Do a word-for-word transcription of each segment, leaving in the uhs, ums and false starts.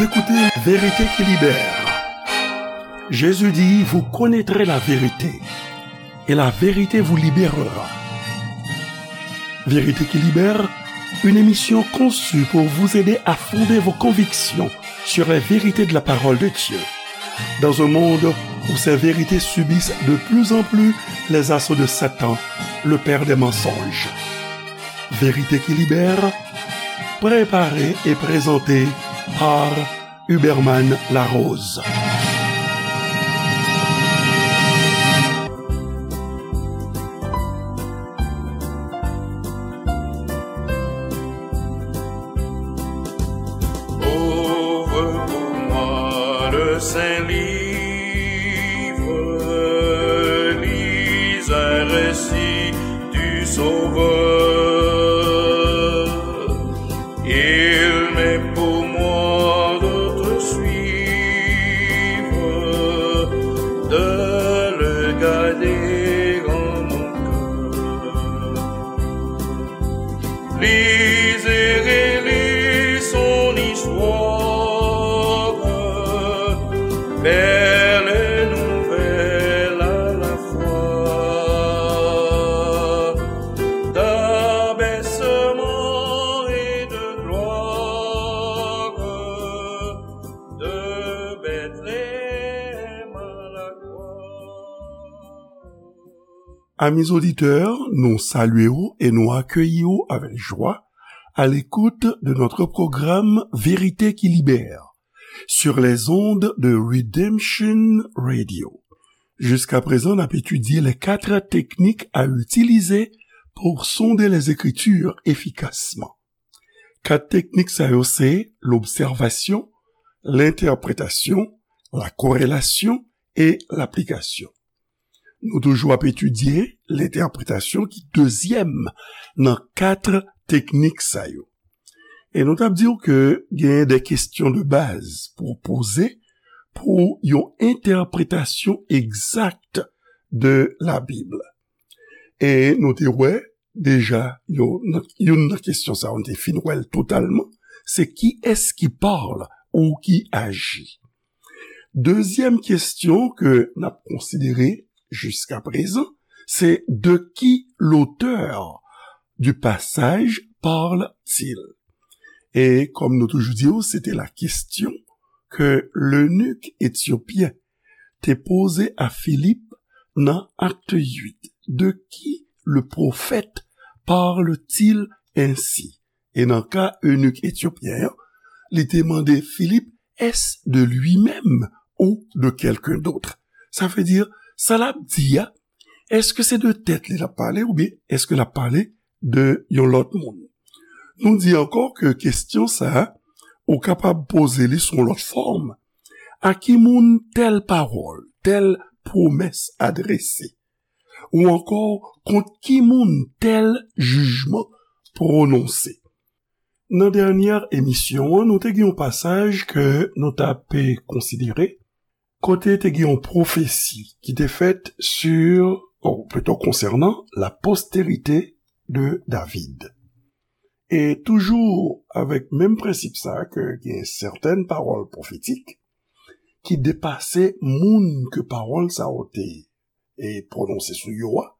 Écoutez Vérité qui libère. Jésus dit, vous connaîtrez la vérité, et la vérité vous libérera. Vérité qui libère, une émission conçue pour vous aider à fonder vos convictions sur les vérités de la parole de Dieu. Dans un monde où ces vérités subissent de plus en plus les assauts de Satan, le père des mensonges. Vérité qui libère, préparée et présentée par Huberman Larose. Ouvre pour moi le saint livre, lis un récit du Sauveur. Il m'est pour moi de te suivre, de le garder en mon cœur. Lis et relis son histoire, belle et nouvelle à la fois, d'abaissement et de gloire, de Bethléem à la croix. Amis auditeurs, nou salye w e nou akeyi w avèk jwa à l'écoute de notre programme Vérité qui libère sur les ondes de Redemption Radio. Jusqu'à présent, n ap etidye les quatre techniques à utiliser pour sonder les Écritures efficacement. Kat teknik sa yo se lobsèvasyon, lentèpretasyon, lakorelasyon e laplikasyon. Nou toujou ap etidye lentèpretasyon ki dezyèm nan kat teknik sa yo. E nou t ap di w ke genyen de kesyon de baz pou w poze pou yon entèpretasyon egzak de Labib. E nou te wè deja, yo, nan, youn nan kesyon sa yo, nou te fin wè l totalman, se qui est-ce qui parle ou qui agit. Dezyèm kesyon ke n ap konsidere jiskaprezan, se de qui l'auteur du passage parle-t-il? E kòm nou toujou di w, se te la kesyon ke lenik etyopyen te poze a Filip nan Acte huit. De qui le prophète parle-t-il ainsi? E nan ka enik etyopyen an, li te mande Filip, est-ce de lui-même ou de quelqu'un d'autre? Sa vle di, sa l ap di a, èske se de tèt li l ap pale oubyen èske l ap pale de yon lòt moun? Nou di ankò ke kesyon sa a, ou kapab poze li sou yon lòt fòm. A ki moun tèl pawòl, tèl pwomès adrese? Ou ankò, kont ki moun tèl jijman pwononse? Nan dènyè emisyon an, nou te gen yon pasaj ke nou t ap konsidere, kote te gen yon pwofesi ki te fèt sur, ou plito konsènan la postérité de David. E toujou avèk menm prensip sa a, ke gen sètèn pawòl pwofetik ki depase moun ke pawòl sa yo te, e, pwononse sou yo a.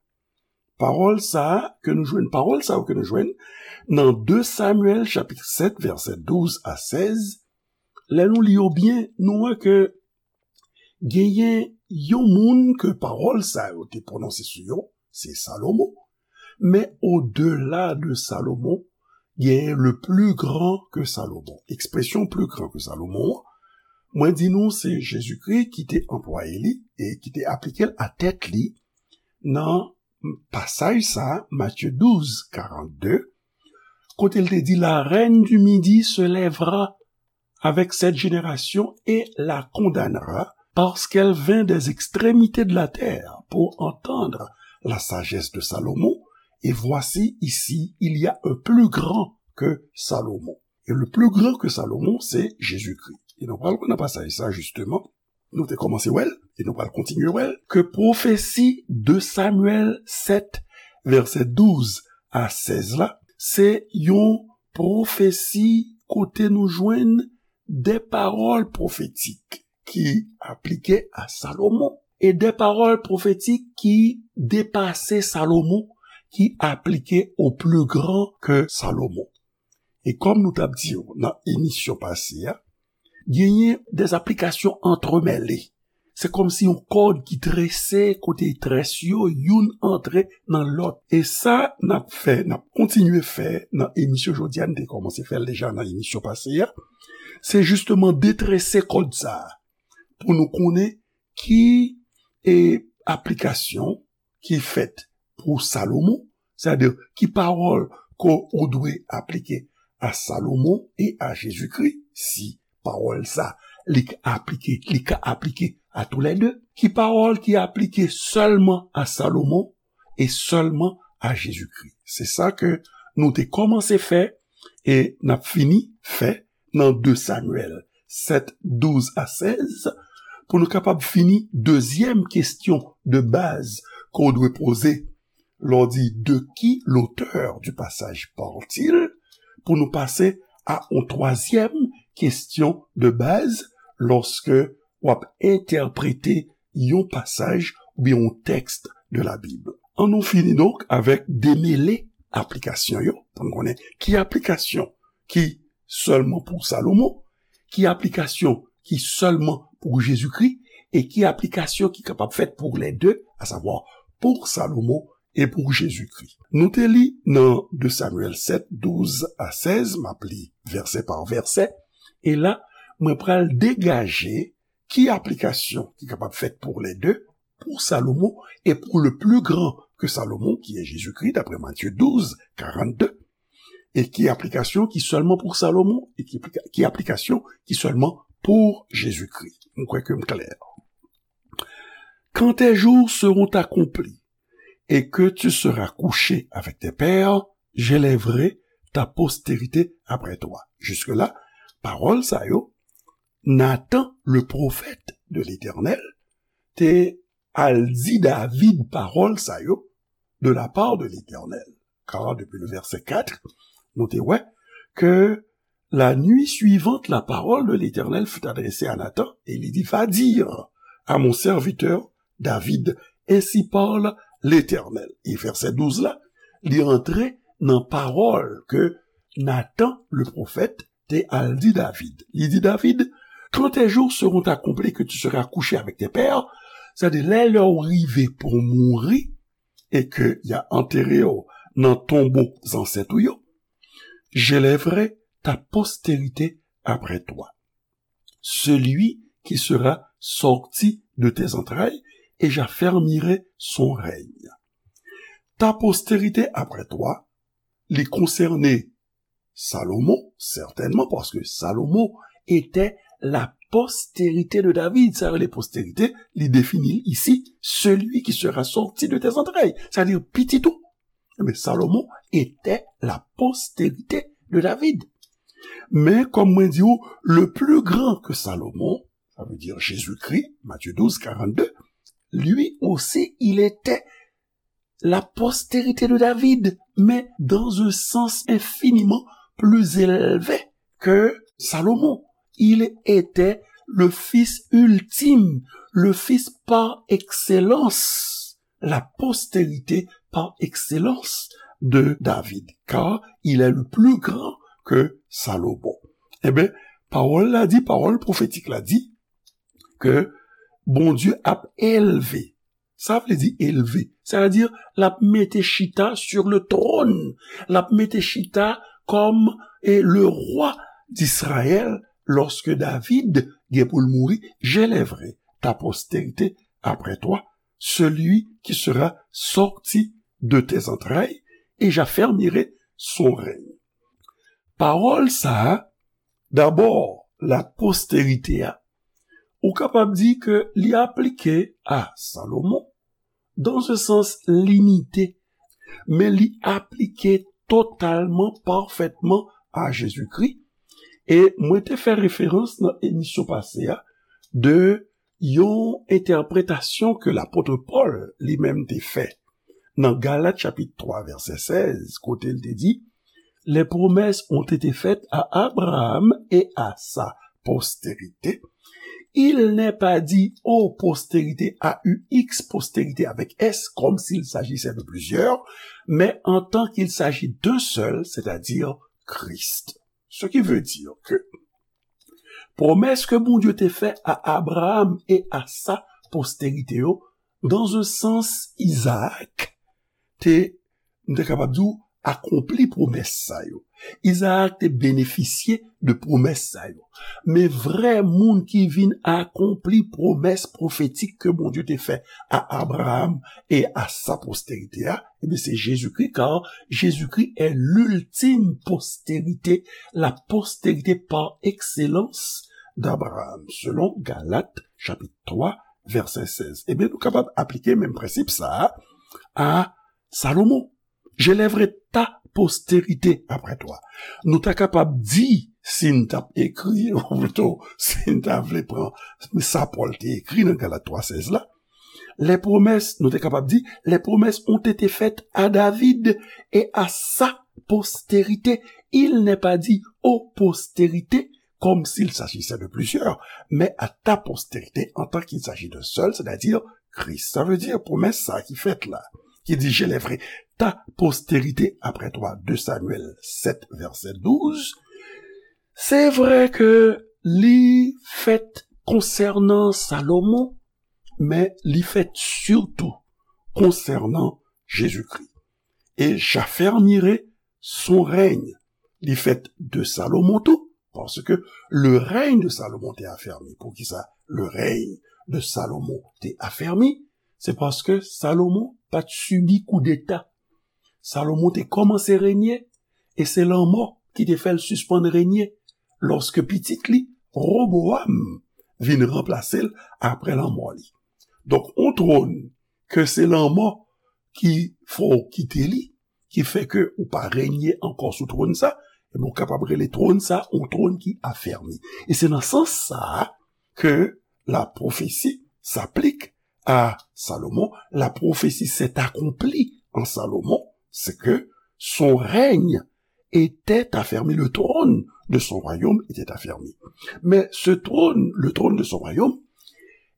Pawòl sa a ke nou jwenn, pawòl sa yo ke nou jwenn nan de Samyèl chapit sèt, vèsè douz a sèz, lè nou li yo byen, nou wè ke genyen yon moun ke pawòl sa yo te pwononse sou yo, se Salomon. Men odela de Salomon, genyen le plus grand que Salomon. Ekspresyon plus grand que Salomon an, mwen di nou se Jezikri ki te anplwaye li e ki te aplike l a tèt li nan pasaj sa a, Matye douz, karannde, kote l te di, la reine du Midi se lèvera avec cette génération et la condamnera, parce qu'elle vint des extrémités de la terre pour entendre la sagesse de Salomon, et voici ici, il y a un plus grand que Salomon. Et le plus grand que Salomon, c'est Jésus-Christ. E nou pral wè nan pasaj sa, jisteman, nou te kòmanse wè l, e nou pral kontinye wè l, ke pwofesi de Samyèl sèt, vèsè douz a sèz la, se yon pwofesi kote nou jwenn des paroles prophétiques qui appliquaient à Salomon et des paroles prophétiques qui dépassaient Salomon, qui appliquaient au plus grand que Salomon. E kòm nou t ap di w nan emisyon pase a, genyen des applications entremêlées. Se kòmsi yon kòd ki trese, kote très yo, youn antre nan lòt. E sa n ap fè, n ap kontinye fè nan emisyon jodi a, n te kòmanse fè l deja nan emisyon pase a, se jisteman detrese kòd sa a, pou nou konnen ki, e, aplikasyon ki fèt pou Salomon, sètadi ki pawòl ke w dwe aplike a Salomon e a Jezikri, si pawòl sa li ka aplike, li ka aplike a toulède, ki pawòl ki aplike sèlman a Salomon e sèlman a Jezikri. Se sa ke nou te kòmanse fè e n ap fini fè nan de Samyèl sèt, douz a sèz, pou nou kapab fini dezyèm kesyon de baz ke w dwe poze lè w di de qui l'auteur du passage parle-t-il, pou nou pase a yon twazyèm kesyon de baz lòske w ap entèprete yon pasaj oubyen yon tèks de la Bib. An nou fini donk avèk demele aplikasyon yo, pou n konnen ki aplikasyon ki sèlman pou Salomon, ki aplikasyon ki sèlman pou Jezikri, e ki aplikasyon ki kapab fèt pou lè de, asavwa pou Salomon e pou Jezikri. Nou te li nan de Samyèl sèt, douz a sèz, m ap li vèsè pa vèsè, e la, mwen pral degaje ki aplikasyon ki kapab fèt pou lè de, pou Salomon e pou le plus grand que Salomon, ki est Jésus-Christ, d'après Matthieu douze, quarante-deux, e ki aplikasyon ki sèlman pou Salomon, e ki, ki aplikasyon ki sèlman pou Jezikri. Mwen kwè ke m klè. Quand tes jours seront accomplis et que tu seras couché avec tes pères, j'élèverai ta postérité après toi. Jiske la, pawòl sa yo, Nathan, le prophète de l'Éternel, te al di David pawòl sa yo de la part de l'Éternel. Car depuis le verset quatre, nou te wè ke la nuit suivante, la parole de l'Éternel fut adressée à Nathan, et il dit, va dire à mon serviteur David, ainsi parle l'Éternel. E vèsè douz la, li antre nan pawòl ke Nathan, le prophète, te al di David. Li di David, quand tes jours seront accomplis que tu seras couché avec tes pères, sètadi lè, lè w rive pou w mouri, e ke y a antere w nan tonbo zansèt ou yo, j'élèverai ta postérité après toi, celui qui sera sorti de tes entrailles, et j'affermirai son règne. Ta postérité après toi, li konsène Salomon, sètènman, paske Salomon était la postérité de David. Sa yo rele postérité, li defini l isi, celui qui sera sorti de tes entrailles, sètadi pitit ou. Ebyen, Salomon était la postérité de David. Men, kòm mwen di w, le plus grand que Salomon, ça veut dire Jésus-Christ, Matthieu douze, quarante-deux, lui aussi, il était la postérité de David, mais dans un sens infiniment plus élevé que Salomon. Il était le fils ultime, le fils par excellence, la postérité par excellence de David, car il est le plus grand que Salomon. Ebyen, pawòl la di, pawòl pwofetik la di, ke Bondye ap elve. Sa vle di elve. Sa vle di, l ap mete chita sur le trône. L ap mete chita kòm, e, le roi d'Israël, lorsque David gen pou l mouri, j'élèverai ta postérité après toi, celui qui sera sorti de tes entrailles, et j'affermirai son règne. Pawòl sa a, dabò, la postérité a, ou kapab di ke li aplike a Salomon, dans un sens limité, men li aplike totalman, pafètman a Jezikri. E mwen te fè referans nan emisyon pase a de yon entèpretasyon ke lapot Pòl li menm te fè nan Galat chapit twa, vèsè sèz, kote l te di, les promesses ont été faites à Abraham et à sa postérité. Il n'est pas dit aux postérités, A U X, postérité avec S, comme s'il s'agissait de plusieurs, mais en tant qu'il s'agit d'un seul, c'est-à-dire Christ. Ce qui veut dire que pwomès ke Bondye te fè a Abraham e a sa postérité yo, dans un sens, Isaac te, m te kapab di w, akonpli pwomès sa yo. Izaak te benefisye de pwomès sa yo. Men vrè moun ki vin akonpli pwomès pwofetik ke Bondye te fè a Abraham e a sa postérité a, ebyen, se Jezikri, car Jésus-Christ est l'ultime postérité, la postérité par excellence d'Abraham, selon Galat, chapit twa, vèsè sèz. Ebyen, nou kapab aplike menm prensip sa a a Salomon. J'élèverai ta postérité après toi. Nou ta kapab di, si n t ap ekri, ou plito, si n ta vle pran sa Pòl te ekri nan Galat twa sèz la, les promesses, nou te kapab di, les promesses ont été faites à David et à sa postérité. Il n'est pas dit aux postérités, comme s'il s'agissait de plusieurs, mais à ta postérité en tant qu'il s'agit d'un seul, c'est-à-dire Christ. Sa vle di pwomès sa ki fèt la, ki di, j'élèverai ta postérité après toi, deux Samuel sept, verset douze. Se vre ke li fèt konsènan Salomon, men li fèt sitou konsènan Jezikri. Et j'affermirai son règne. Li fèt de Salomon tou, paske le règne de Salomon te affermi. Poukisa le règne de Salomon te affermi? Se paske Salomon pa t sibi koudeta. Salomon te kòmanse renye, e se lanmò ki te fè l sispann renye, lòske pitit li, Roboam, vin ranplase l apre lanmò li. Donk, on twòn ke se lanmò ki fè w kite li, ki fè ke ou pa renye ankò sou twòn sa, ebyen, ou kapab rele twòn sa on twòn ki afèmi. E se nan sans sa a ke la prophétie s'applique à Salomon, la prophétie s'est accomplie en Salomon, c'est que son règne était affermi, le trône de son royaume était affermi. Mais ce trône, le trône de son royaume,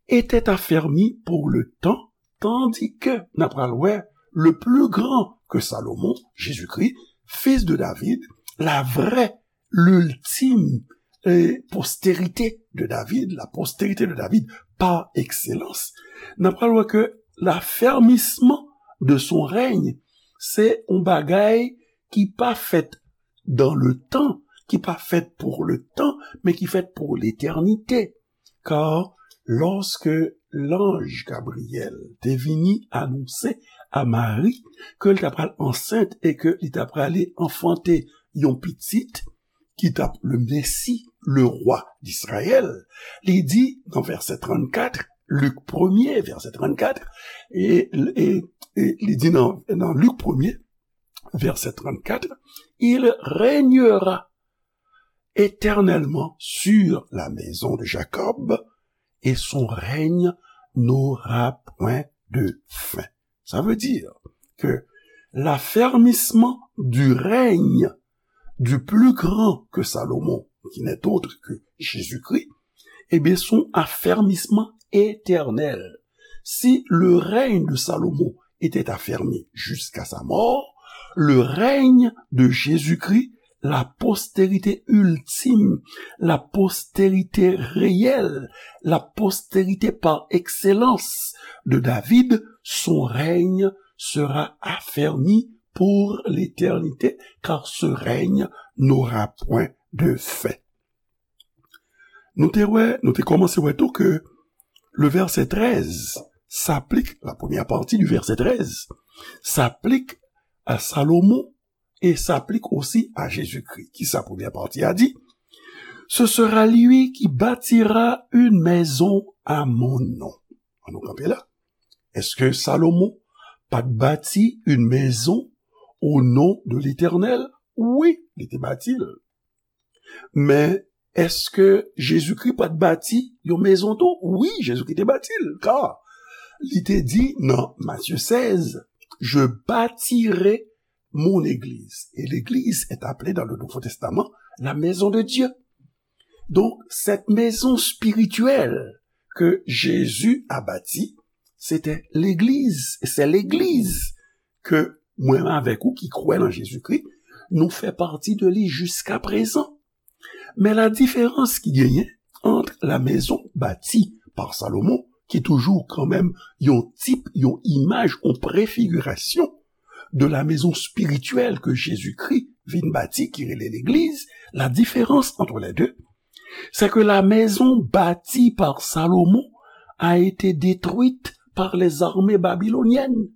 était affermi pour le temps, tandis que, n ap pral wè, le plus grand que Salomon, Jésus-Christ, fils de David, la vraie, l'ultime, eh, postérité de David, la postérité de David par excellence, n ap pral wè ke l'affermissement de son règne, se yon bagay ki pa fèt dans le temps, ki pa fèt pour le temps, men ki fèt pour l'éternité. Car lorsque l'ange Gabriel te vini anonse a Mari ke l ta pral ansent e ke li ta prale anfante yon pitit ki t ap le Messie, le roi d'Israël, li di nan vèsè trannkat, Lik premye, vèsè trannkat, e, e, e li di nan, nan Lik premye, vèsè trannkat, il régnera éternellement sur la maison de Jacob, et son règne n'aura point de fin. Ça veut dire que l'affermissement du règne du plus grand que Salomon, qui n'est autre que Jésus-Christ, eh bien, son affermissement éternel. Si le règne de Salomon était affermi jusqu'à sa mort, le règne de Jésus-Christ, la postérité ultime, la postérité réelle, la postérité par excellence de David, son règne sera affermi pour l'éternité, car ce règne n'aura point de fin. Nou te wè, nou te kòmanse wè tou ke le verset treize s'applique, la première partie du verset treize s'applique à Salomon et s'applique aussi à Jésus-Christ. Kisa premyè pati a di? Ce sera lui qui bâtira une maison à mon nom. An nou kanpe la. Èske Salomon pa t bati une maison au nom de l'Éternel? Wi, li te bati l. Men, èske Jezikri pa t bati yon mezon tou? Wi, Jezikri te bati l, ka li te di nan Matye sèz, je bâtirai mon église. Et l'église est appelée dans le Nouveau Testament la maison de Dieu. Donc, cette maison spirituelle que Jésus a bâtie, c'était l'Église. Et c'est l'Église que mwen avèk ou ki kwè nan Jezikri, nou fè pati de li jiska prezan. Men la diferans ki genyen ant la maison bâtie par Salomon, ki toujou kanmenm yon tip, yon imaj, yon prefigirasyon de la maison spirituelle que Jésus-Christ vin bati, ki rele legliz, la différence entre les deux, c'est que la maison bâtie par Salomon a été détruite par les armées babyloniennes.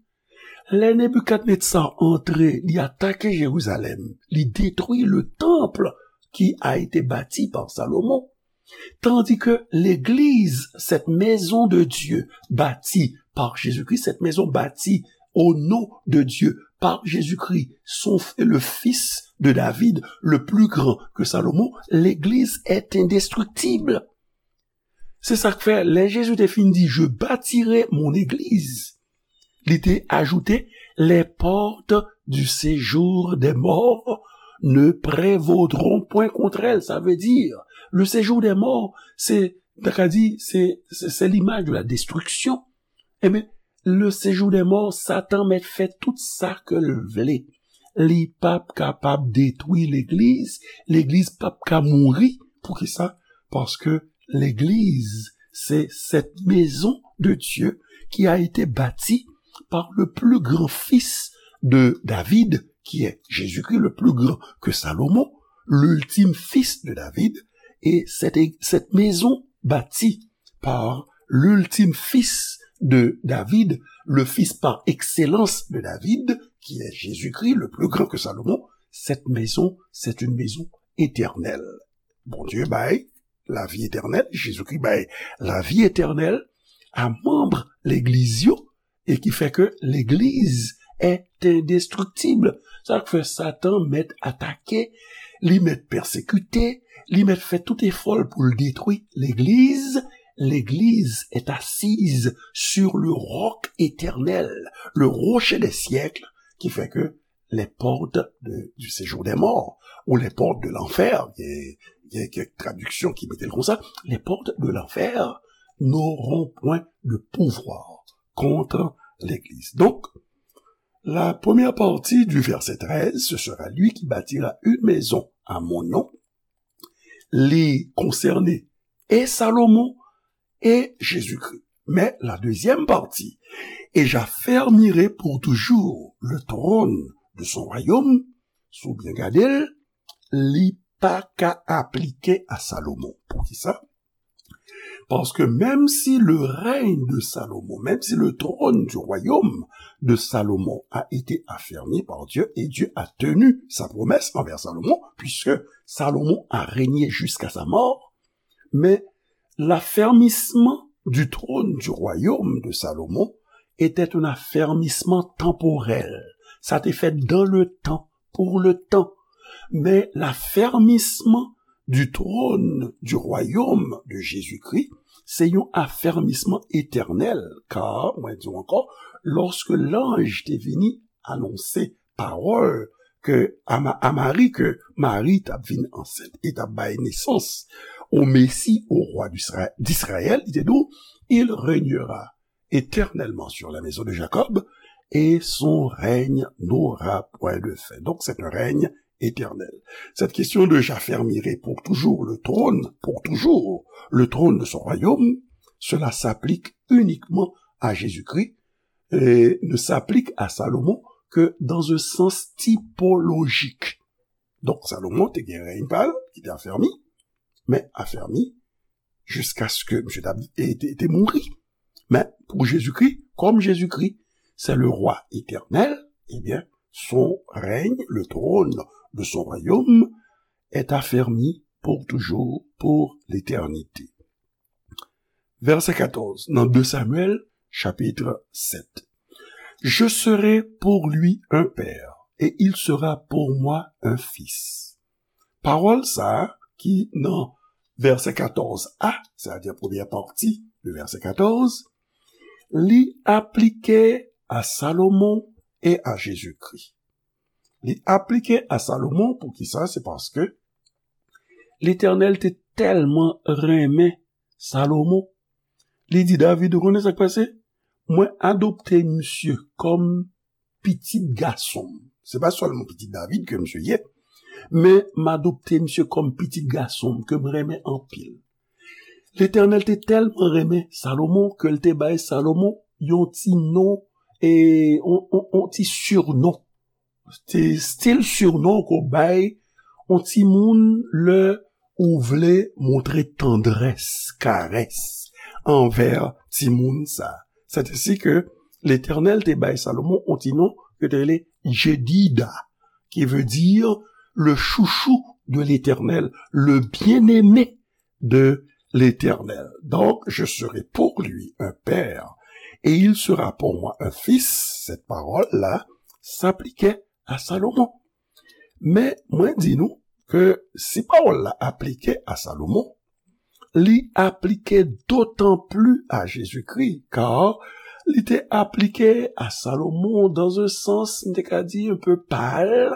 Lè Nebikadnetsa antre, li atake Jerizalèm, li detwi le temple qui a été bâti par Salomon. Tandis que l'église, cette maison de Dieu bâtie par Jésus-Christ, cette maison bâtie au nom de Dieu par Jésus-Christ, son, le fils de David, le plus grand que Salomon, l'église est indestructible. Se sa k fè, lè Jezi te fin di, "Je bâtirai mon église", li te ajoute, "Les portes du séjour des morts ne prévaudront point contre elle." Sa vle di, le séjour des morts, se, ta ka di, se, se, se limaj de la destriksyon. Ebyen, le séjour des morts, Satan mèt fè tout sa ke l vle. Li p ap kapab detwi legliz, legliz p ap ka mouri. Poukisa? Paske legliz, c'est cette maison de Dieu qui a été bâtie par le plus grand fils de David, qui est Jésus-Christ, le plus grand que Salomon, l'ultime fils de David. Et cette, cette maison bâtie par l'ultime fils de David, le fils par excellence de David, qui est Jésus-Christ, le plus grand que Salomon, cette maison, c'est une maison éternelle. Bondye bay lavi etènèl, Jezikri bay lavi etènèl a manm legliz yo, e ki fè ke legliz est indestructible. Sa k fè Satan mèt atake, li mèt pèsekite, li mèt fè tout efò l pou l detwi legliz. L'église est assise sur le roc éternel, le rocher des siècles, ki fè ke les portes de, du séjour des morts, ou les portes de l'enfer, gen, gen kèk tradiksyon ki mete l konsa, les portes de l'enfer n'auront point de pouvoir contre l'église. Donc, la première partie du verset treize, ce sera lui qui bâtira une maison à mon nom. Li konsène e Salomon e Jezikri. Mais la deuxième partie, et j'affermirai pour toujours le trône de son royaume, si w byen gade l, li pa ka aplike a Salomon. Poukisa? Parce que même si le règne de Salomon, même si le trône du royaume de Salomon a été affermi par Dieu, et Dieu a tenu sa promesse envers Salomon, puisque Salomon a régné jusqu'à sa mort, mais l'affermissement du trône du royaume de Salomon était un affermissement temporel. Sa te fèt dans le temps, pour le temps. Mais l'affermissement du trône du royaume de Jésus-Christ, se yon afèmisman etènèl, kar, mwen di w ankò, lòske lanj te vini anonse pawòl ke a Ma-, a Mari, ke Mari t ap vin ansent e t ap bay nesans o Mesi, o rwa d'Isra-, d'Izrayèl, li te di w, "Il régnera éternellement sur la maison de Jacob, et son règne n'aura point de fin." Donc, c'est un règne éternel. Cette question de "J'affermirai pour toujours le trône, pour toujours le trône de son royaume", cela s'applique uniquement à Jésus-Christ et ne s'applique à Salomon que dans un sens typologique. Donk, Salomon te gen rèy pa l ki te afèmi, men afèmi jiskaske misye t ap, e, te, te mouri. Men pou Jezikri, kòm Jezikri se le rwa etènèl, ebyen, son règne, le trône de son royaume, est affermi pour toujours, pour l'éternité. Vèsè katòz, nan de Samyèl, chapit sèt. "Je serai pour lui un père, et il sera pour moi un fils." Pawòl sa a ki nan vèsè katòz a, sètadi premyè pati de vèsè katòz, li aplike a Salomon e a Jezikri. Li aplike a Salomon, poukisa? Se paske Letènèl te tèlman renmen Salomon, li di David, ou konnen sa k pase? Mwen adopte misye kòm pitit gason m. Se pa sèlman pitit David ke misye ye, men m adopte misye kòm pitit gason m ke m renmen anpil. Letènèl te tèlman renmen Salomon ke l te bay Salomon yon ti non, e yon, yon, yon ti surnon. Ti stil surnon ke w bay yon timoun lè ou vle montre tandrès, karès anvè timoun sa. Sètesi ke Letènèl te bay Salomon yon ti non ke te rele Jedida, qui veut dire le chouchou de l'Éternel, le bien-aimé de l'Éternel. Donc, je serai pour lui un père, et il sera pour moi un fils. Cette parole-là s'appliquait à Salomon. Men, mwen di nou ke si pawòl la aplike a Salomon, li aplike dotan pli a Jezikri, kar li te aplike a Salomon dans un sens, m te ka di, un peu pâle,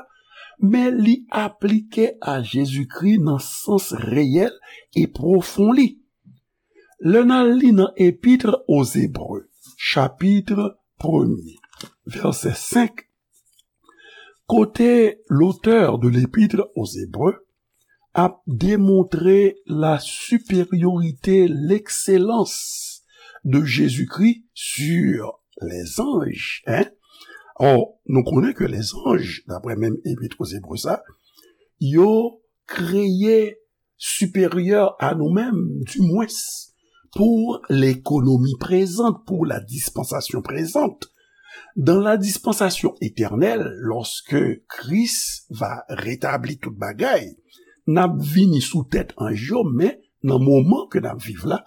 men li aplike a Jezikri nan sans reyèl e pwofon li. Lè n al li nan Epître aux Hébreux, chapit premye, vèsè senk, kote l'auteur de l'Épître aux Hébreux ap demontre la supériorité, l'excellence de Jésus-Christ sur les anges, hein? Or, nou konnen ke lèzanj, daprè menm Epître aux Hébreux sa, yo kreye siperyè a nou menm, dimwens, pour l'économie présente, pour la dispensation présente. Dans la dispensation éternelle, lorsque Christ va rétablir tout bagay, n ap vini sou tèt anj yo, men nan moman ke n ap viv la,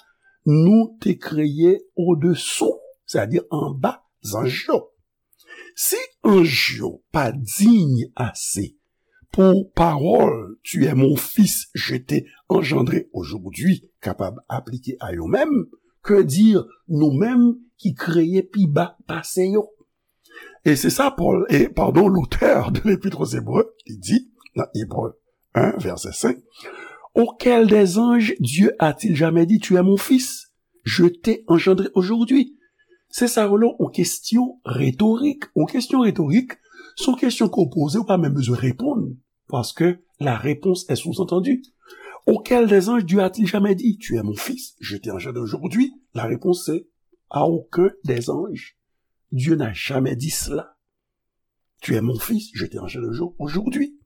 nou te kreye odesou, sètadi anba zanj yo. Si anj yo pa diy ase pou pawòl Tu es mon fils, je t'ai engendré aujourd'hui kapab aplike a yo menm, que dire nou menm ki kreye pi ba pase yo? E se sa Pòl, e, padon, l'auteur de l'Épître aux Hébreux, li di nan Ebre en, vèsè senk, auquel des anges Dieu a-t-il jamais dit, Tu es mon fils, je t'ai engendré aujourd'hui? Se sa yo rele yon kesyon retorik. Yon kesyon retorik, se yon kesyon ke w poze, ou pa menm bezwen reponn, paske la réponse est sous-entendue. Auquel des anges Dieu a-t-il jamais dit, Tu es mon fils, je t'ai engendré aujourd'hui? La réponse c'est, à aucun des anges Dieu n'a jamais dit cela. Tu es mon fils, je t'ai engendré aujourd'hui.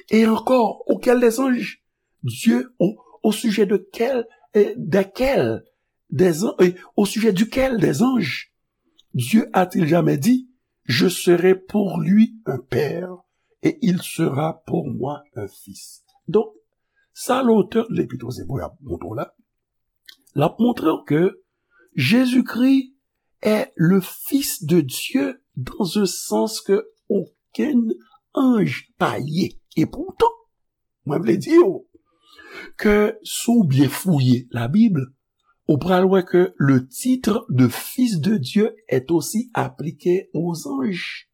Et encore, auquel des anges Dieu, au, au sujet de quel, euh, desquels des an-, euh, au sujet duquel des anges Dieu a-t-il jamais dit, Je serai pour lui un père et il sera pour moi un fils? Donk, sa l'auteur de l'Épître aux Hébreux ap montre w la, l ap montre w ke Jezikri est le Fils de Dieu dans un sens ke okenn anj pa ye. E poutan, mwen vle di w ke si w byen fouye Labib, ou pral wè ke le titre de Fils de Dieu est aussi appliqué aux anges.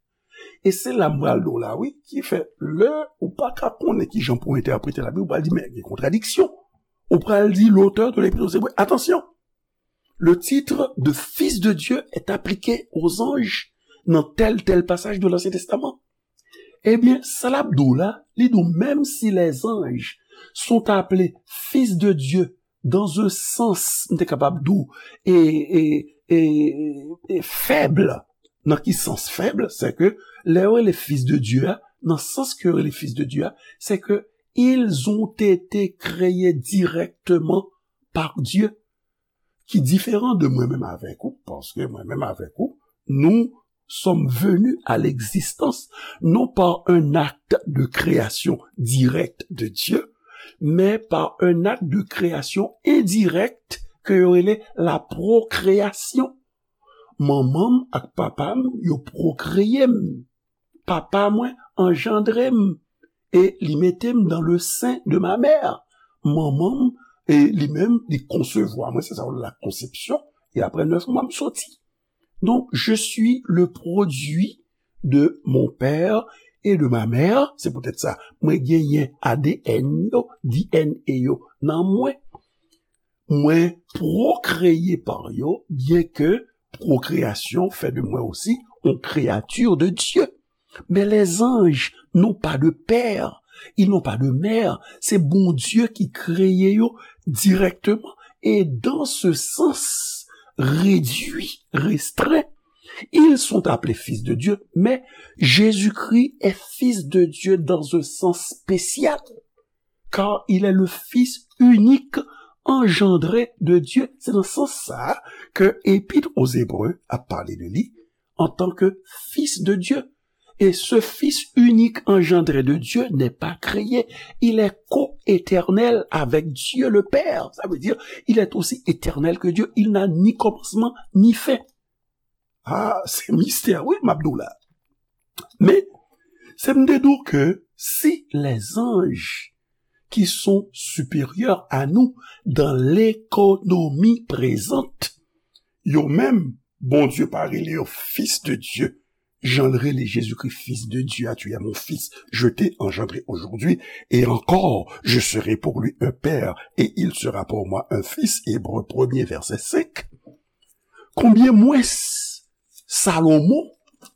E se la m pral di w la, wi, ki fè lè ou pa ka konnen ki jan pou w entèprete Labib, ou pral di, men gen kontradiksyon. Ou pral di l'auteur de l'Épître aux Hébreux, attention, le titre de Fils de Dieu est appliqué aux anges dans tel, tel passage de l'Ancien Testament. Ebyen, sa l ap di w la, li di w, menm si les anges sont appelés fils de Dieu dans un sens, m te kapab di w, e, e, e, e fèb. Nan ki sans fèb? Se ke lè yo rele fils de Dieu a, nan sans ke yo rele fils de Dieu a, se ke ils ont été créés directement par Dieu, ki diferan de mwen menm avèk ou, paske mwen menm avèk ou, nous sommes venus à l'existence non par un acte de création directe de Dieu, mais par un acte de création indirecte ke yo rele la procréation. Manman m ak papa m, yo pwokreye m. Papa mwen anjandre m e li mete m dans le sein de ma mère. Manman m, e li menm, li konsevwa mwen, se sa yo rele la conception, e apre nèf mwa, m soti. Donc, je suis le produit de mon père et de ma mère, se poutèt sa, mwen genyen A D N yo, D N A yo nan mwen. Mwen pwokreye pa yo, byenke pwokreyasyon fè de mwen osi yon kreyati de Dye. Men lèzanj n'ont pas de père, ils n'ont pas de mère. Se Bondye ki kreye yo dirèkteman. Et dans ce sens réduit, restreint, ils sont appelés fils de Dieu, mais Jésus-Christ est fils de Dieu dans un sens spécial, car il est le Fils unique engendré de Dieu. Se nan sans sa ke Epître aux Hébreux a pale de li antanke Fils de Dieu. Et ce Fils unique engendré de Dieu n'est pas créé. Il est co-éternel avec Dieu le Père. Ça veut dire, il est aussi éternel que Dieu. Il n'a ni commencement ni fin. Ah, c'est mystère, oui, m ap di w la. Men, se m te di w ke si les anges qui sont supérieurs à nous dans l'économie présente, yo menm, Bondye pa rele yo fils de Dieu, jan l rele Jezikri, Fils de Dieu, ah, tu es mon fils, je t'ai engendré aujourd'hui, et encore, je serai pour lui un père, et il sera pour moi un fils, Hébreux premier, verset cinq. Konbyen mwens Salomon,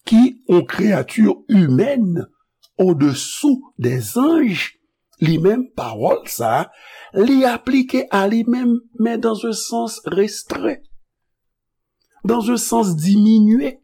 ki yon kreyati imèn odesou dèzanj, li menm, pawòl sa a, li aplike a li menm, men dans un sens restreint, dans un sens diminué.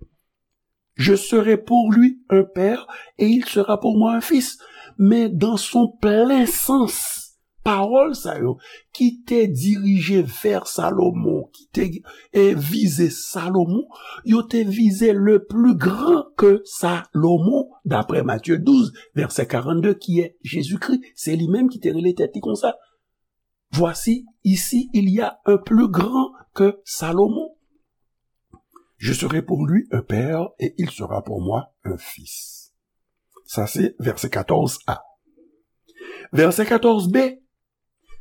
Je serai pour lui un père et il sera pour moi un fils. Men dans son plein sens, pawòl sa yo ki te dirije vè Salomon, ki te, e, vize Salomon, yo te vize le plus grand que Salomon, d'après Matthieu douze, verset quarante-deux, qui est Jésus-Christ. Se li menm ki te rele tèt li konsa. Voici, ici, il y a un plus grand que Salomon. Je serai pour lui un père et il sera pour moi un fils. Sa se vèsè katòz a. Vèsè katòz b,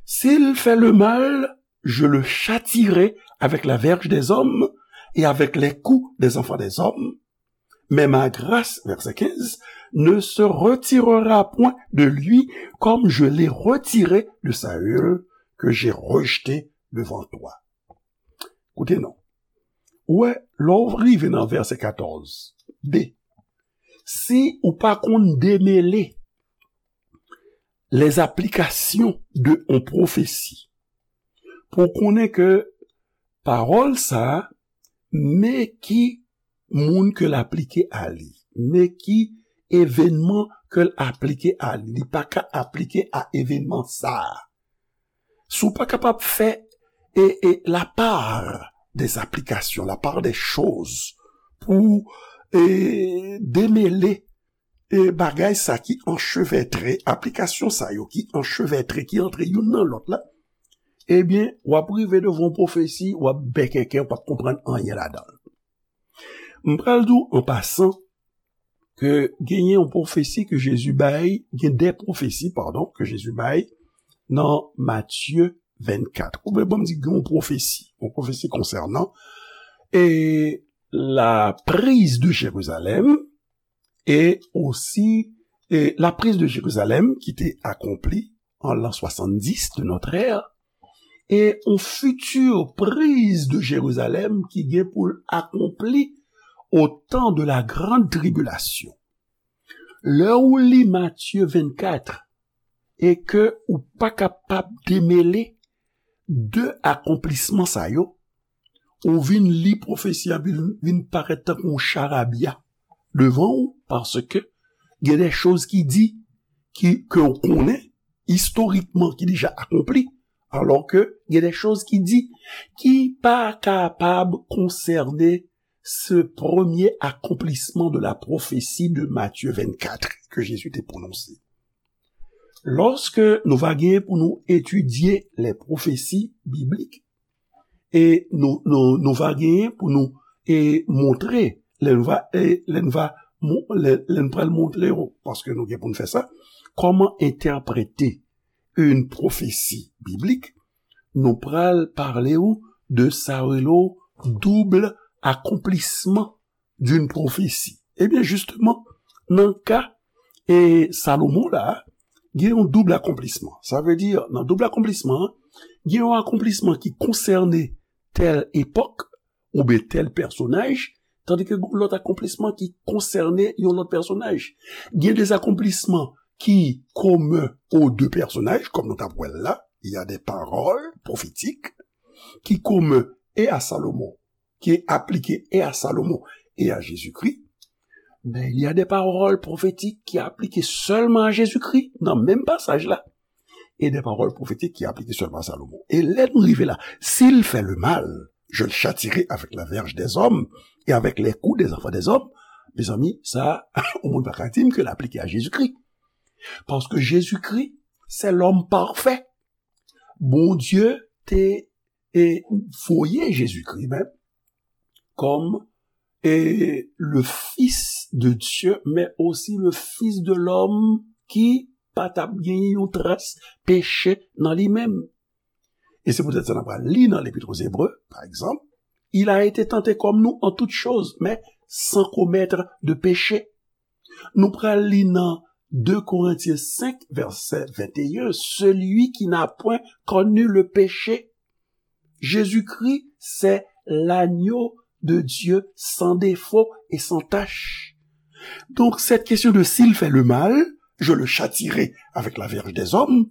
s'il fait le mal, je le châtierai avec la verge des hommes et avec les coups des enfants des hommes. Mais ma grâce, verset quinze, ne se retirera point de lui comme je l'ai retiré de Saül, que j'ai rejeté devant toi. Koute non. Ou wè, lè w rive nan vèsè katòz b, si ou pa konn demele les applications de yon pwofesi, pou w konnen ke pawòl sa a, men ki moun ke l aplike a li, men ki evènman ke l aplike a li, li pa ka aplike a evènman sa a. Si w pa kapab fè, e, e, la part des applications, la part des choses, pou, e, demele, e, bagay sa ki anchevètre, aplikasyon sa yo ki anchevètre, ki antre youn nan lòt la, ebyen, w ap rive devan yon pwofesi, w ap bèkèkè, w p ap konprann anyen ladan l. M pral di w an pasan ke genyen yon pwofesi ke Jezi bay, gen de pwofesi, padon, ke Jezi bay nan Matye vennkat. Ou vle ban m di gen yon pwofesi, yon pwofesi konsènan, e, la prise de Jérusalem, e osi, e, la prise de Jérusalem ki te akonpli an l'an soixante-dix de notre ère, e yon future prise de Jérusalem ki gen pou l akonpli au temps de la grande tribulation. Lè ou li Matye vennkat e ke ou pa kapab demele de akonplisman sa yo, ou vin li pwofesi a vin, vin parèt tankou yon charabya devan ou, paske gen de choz ki di, ki, ke w konnen, istorikman, ki deja akonpli, alò ke gen de choz ki di, ki pa kapab konsène ce premier accomplissement de la prophétie de Matthieu vingt-quatre que Jésus te prononse. Lòske nou va genyen pou nou etidye les prophéties bibliques, e nou, nou, nou va genyen pou nou, e, montre, lè nou va, e, lè nou va, mon-, lè, lè nou pral montre yo, paske nou gen pou nou fè sa, kòman entèprete une prophétie biblique, nou pral pale ou de sa yo rele double accomplissement d'une prophétie. Ebyen, jisteman, nan ka E Salomon la, gen yon doub akonplisman. Sa vle di, nan doub akonplisman an, gen yon akonplisman ki konsène tèl epòk oubyen tèl pèsonaj, tandike gen lòt akonplisman ki konsène yon lòt pèsonaj. Gen de akonplisman ki komen aux deux personnages, kòm nou t ap wè l la, il y a des paroles prophétiques qui communs et à Salomon, qui est appliqué et à Salomon et à Jésus-Christ, mais il y a des paroles prophétiques qui appliquent seulement à Jésus-Christ, nan menm pasaj la, et des paroles prophétiques qui appliquent seulement à Salomon. E lè nou rive la, s'il fait le mal, je le châtierai avec la verge des hommes et avec les coups des enfants des hommes. Mezanmi, sa, yon moun pa ka di m ke l aplike a Jezikri. Paske Jezikri, se lòm pafè. Bondye te e voye Jezikri menm kòm e le Fils de Dieu, men osi le Fils de l'homme ki pa t ap genyen yon tras peche nan li menm. E se poutèt sa n ap pral li nan Lepit aux Hébreux, pa egzanp, il a été tenté comme nous en toutes choses, mais sans commettre de péché. Nou pral li nan deux Corinthiens cinq, verset vingt et un, celui qui n'a point connu le péché. Jésus-Christ, c'est l'agneau de Dieu sans défaut et sans tache. Donc, cette question de s'il fait le mal, je le châtierai avec la verge des hommes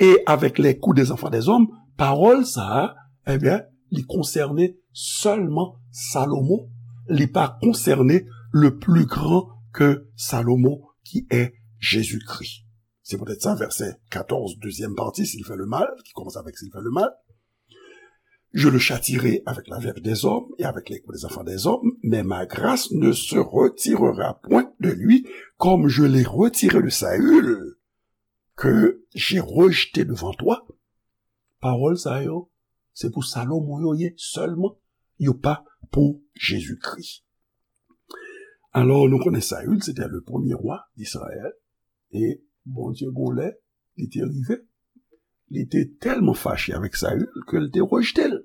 et avec les coups des enfants des hommes, pawòl sa a, ebyen, li konsène sèlman Salomon, li pa konsène le plus grand que Salomon, qui est Jésus-Christ. C'est peut-être ça, verset quatorze, deuxième partie, s'il fait le mal, qui commence avec s'il fait le mal. Je le châtierai avec la verge des hommes et avec les coups des enfants des hommes, mais ma grâce ne se retirera point de lui, comme je l'ai retiré de Saül, que j'ai rejeté devant toi. Pawòl sa yo, se pou Salomon yo ye sèlman, yo pa pou Jezikri. Alò, nou konnen Saül, se te le premye wa d Izrayèl, e Bondye gon lè, li te rive, li te tèlman fache avèk Saül ke l te rejte l.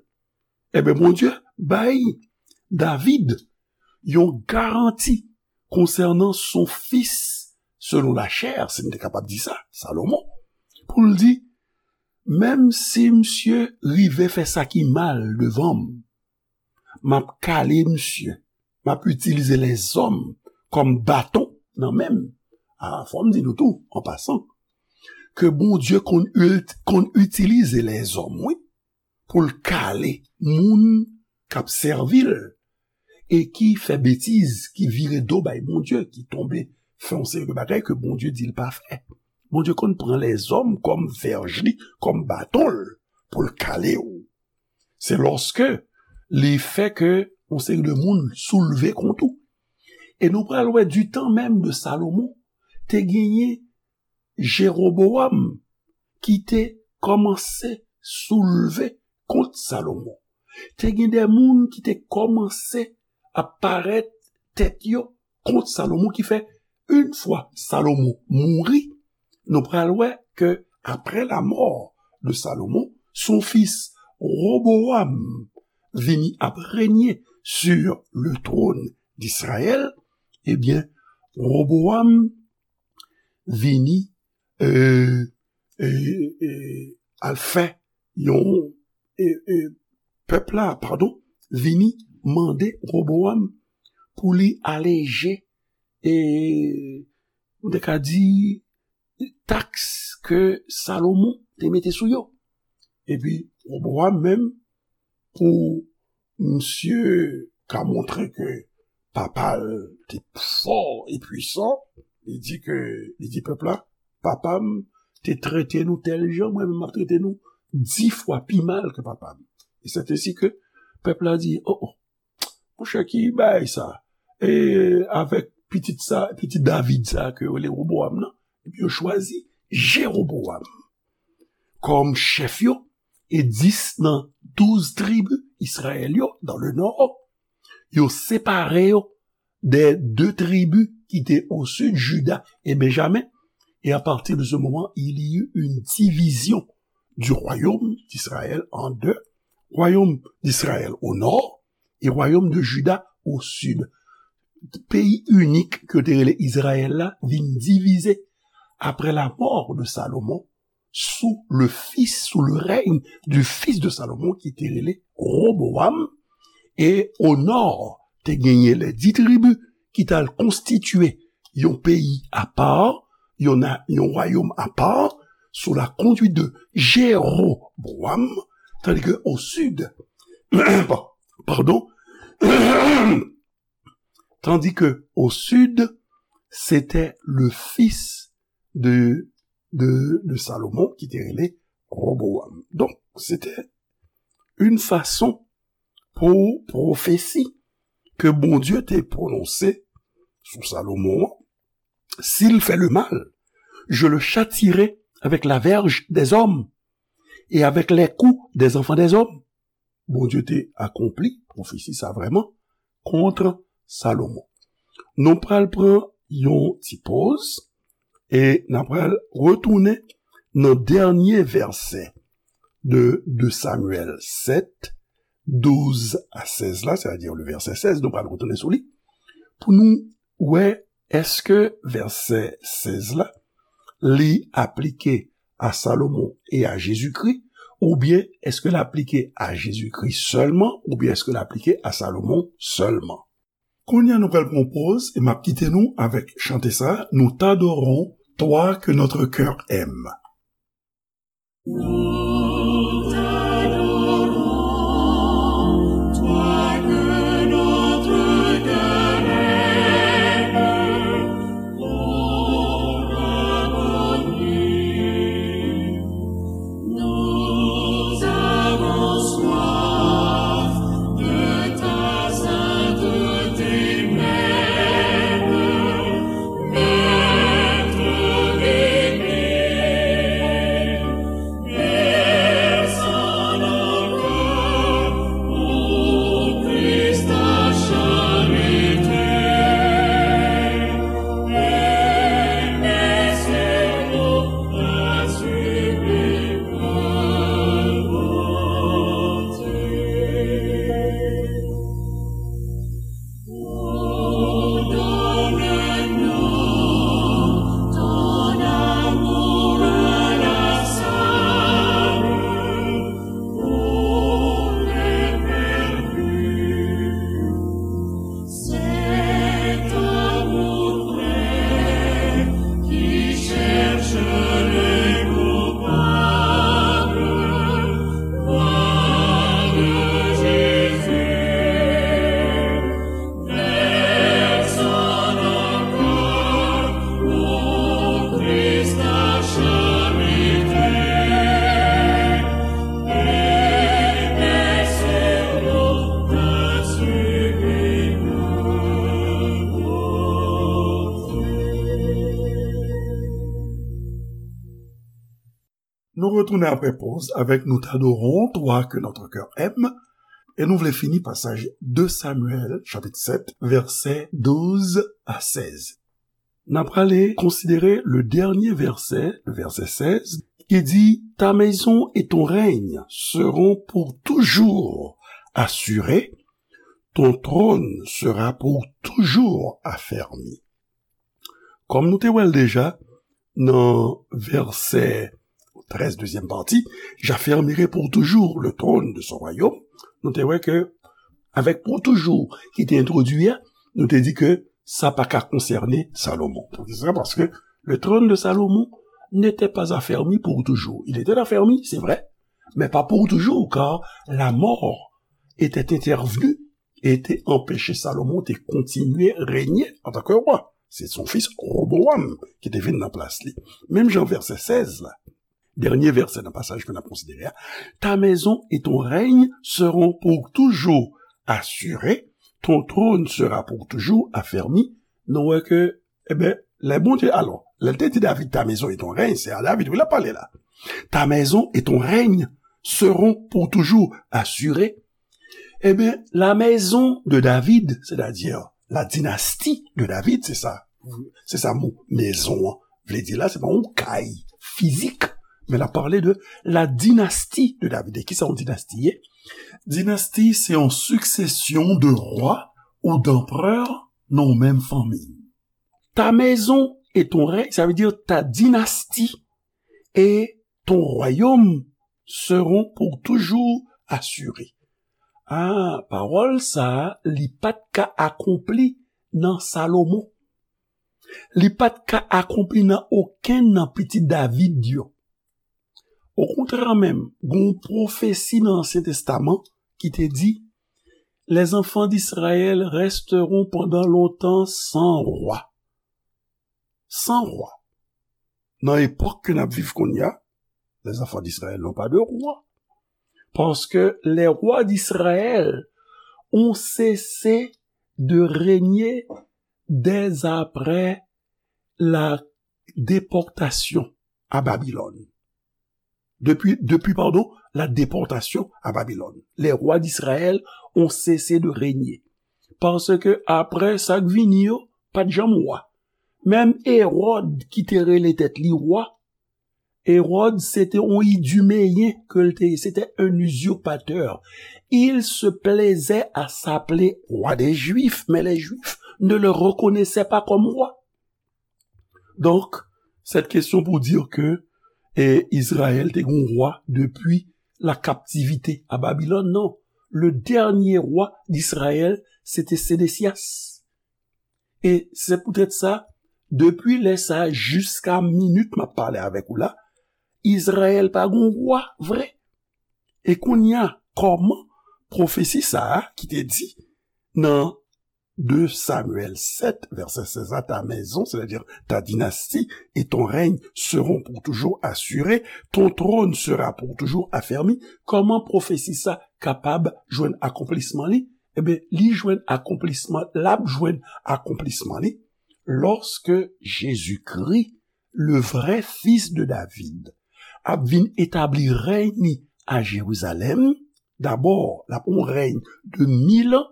Ebyen, Bondye bay David yon garanti konsènan son fis selon lachè, si m te kapab di sa, Salomon, pou l di, menm si misye rive fè sa ki mal devan m, m ap kale misye, m ap itilize lèzòm kòm baton nan men m. A, fò m di nou tou, an pasan, ke Bondye konn, konn itilize lèzòm, wi, pou l kale moun k ap sèvi l e ki fè betiz, ki vire do bay Bondye, ki tonbe fè yon seri de bagay ke Bondye di l pa fè. Bondye konn pran lèzòm kòm vèj li, kòm baton l, pou l kale w. Se lòske li fè ke yon seri de moun soulve kont ou. E nou pral wè, du temps même de Salomon, te genyen Jeroboam ki te kòmanse soulve kont Salomon. Te gen de moun ki te kòmanse ap parèt tèt yo kont Salomon, ki fè, yon fwa Salomon mouri, nou pral wè ke après la mort de Salomon, son fils Roboam vini ap régner sur le trône d'Israël. Ebyen, Roboam vini, euh, euh, euh, al fè yon, euh, euh, pèp la, padon, vini mande Roboam pou li aleje, e, m te ka di, taks ke Salomon te mete sou yo. Epi, Roboam menm, pou misye ka montre ke papa l te fò e pwisan, li di ke, li di pèp la, papa m te trete nou tèl jan, mwen menm m ap trete nou dis fwa pi mal ke papa m. E se te si ke pèp la di, o, o, monchè, ki bagay sa? E avèk pitit sa, pitit David sa ke yo rele Roboam nan, epi yo chwazi Jeroboam kòm chèf yo, e dis nan douz tribi Izrayèl yo, dans le nord, yo separe yo des deux tribus qui étaient au sud, Juda et Benjamin. Et à partir de ce moment, il y eut une division du royaume d'Israël en deux, royaume d'Israël au nord et royaume de Juda au sud. peyi inik ke yo te rele Izrayèl la vin divize après la mort de Salomon, sous le fils, sous le règne du fils de Salomon, ki te rele Roboam. E o nò, te genyen les dix tribus ki t al konstitye yon peyi apa, yon na-, yon wayòm apa, sous la conduite de Jéroboam, tandis que au sud, pa-, pardon, tandis que au sud, c'était le fils de, de, de Salomon ki te rele Roboam. Donk, se te yon fason pou pwofesi ke Bondye te pwononse sou Salomon an, s'il fait le mal, je le châtierai avec la verge des hommes et avec les coups des enfants des hommes. Bondye te akonpli pwofesi sa vrèman kont Salomon. Nou pral pran yon ti poz e n ap pral retounen nan dènye vèsè de, de Samyèl sèt, douz a sèz la, sètadi le vèsè sèz, nou pral retounen sou li, pou nou wè èske vèsè sèz la, li aplike a Salomon e a Jezikri, oubyen èske l aplike a Jezikri sèlman, oubyen èske l aplike a Salomon sèlman? Kounye a nou pral pran poz e m ap kite nou avèk chante sa, Nous t'adorons, toi que notre cœur aime. Nous t'adorons, toi que notre cœur aime, ô rabboni. Nous avons soif de ta sainteté même, Maître divin. Descends nos cœurs, ô Christ, ta charité. Et mets sur nous ta sublime bonté. Donne-nous ton amour inlassable pour les perdus. Cet amour vrai qui cherche les coupables, gloire de Jésus. Descends nos cœurs, ô Christ, ta charité, et mets sur nous ta sublime bonté. Nou retounen apre poz avèk Nous t'adorons, toi que notre cœur aime, e nou vle fini pasaj de Samyèl, chapit sèt, vèsè douz a sèz. N ap prale konsidere le dènye vèsè, le vèsè sèz, ki di, Ta maison et ton règne seront pour toujours assurés, ton trône sera pour toujours affermi. Kòm nou te wè l deja nan vèsè trèz, dezyèm pati, j'affermirai pour toujours le trône de son royaume, nou te wè ke avèk pour toujours ki te entwodui a, nou te di ke sa pa ka konsène Salomon. Poukisa? Paske le trône de Salomon n'était pas affermi pour toujours. Il était affermi, c'est vrai, mais pas pour toujours, car la mort était intervenue e te anpeche Salomon te kontinye renye antanke wa. Se son fis Roboam ki te vin nan plas li. Menm jan vèsè sèz la, dènye vèsè nan pasaj ke n ap konsidere a, Ta maison et ton règne seront pour toujours assurés, ton trône sera pour toujours affermi. Nou wè ke, ebyen, lè Bondye, alò, lè l te di David, Ta maison et ton règne, se a David, wi, l ap pale la. Ta maison et ton règne seront pour toujours assurés. Ebyen, la maison de David, c'est-à-dire la dynastie de David, se sa, se sa mo maison an vle di la, se pa yon kay fizik, men l ap pale de la dynastie de David. E kisa yon dinasti ye? Dinasti, se yon succession de rois ou d'empereurs nan yon menm fanmi. Ta maison et ton règne, ça veut dire ta dynastie et ton royaume seront pour toujours assurés. Ah, pawòl sa a, li pa t ka akonpli nan Salomon. Li pa t ka akonpli nan okenn nan pitit David yo. Okontrè menm, gen yon pwofesi nan Ansyen Testaman ki te di, les enfants d'Israël resteront pendant longtemps sans roi. Sans roi. Nan epòk ke n ap viv kounye a, les enfants d'Israël n'ont pas de roi. Parce que les rois d'Israël ont cessé de régner dès après la déportation à Babylone. Depuis, depuis, pardon, la déportation à Babylone. Les rois d'Israël ont cessé de régner. Paske apre sa k vini yo, pa t janm wa. Menm Ewòd ki te rele tèt li wa, Ewòd se te yon idumeyen ke l te ye, se te un usurpateur. Il se plaisait à s'appeler roi des Juifs, mais les Juifs ne le reconnaissaient pas comme roi. Donk, cette question pour dire que eh, Israël te gon wa depi la captivité à Babylone, non. Le dernier roi d'Israël, se te Sédécias. E se poutèt sa, depi lè sa a jiska minit m ap pale avèk ou la, Izrayèl pa gon wa vre. E kounye a, kòman pwofesi sa a ki te di nan de Samyèl sèt, vèsè sèz la, ta maison, c'est-à-dire ta dynastie et ton règne seront pour toujours assurés, ton trône sera pour toujours affermi, kòman pwofesi sa kapab jwenn akonplisman li? Ebyen, li jwenn akonplisman, l ap jwenn akonplisman li lòske Jezikri, le vrai fils de David, ap vin etabli rèy ni a Jerizalèm. Dabò, l ap yon rèy de mil an,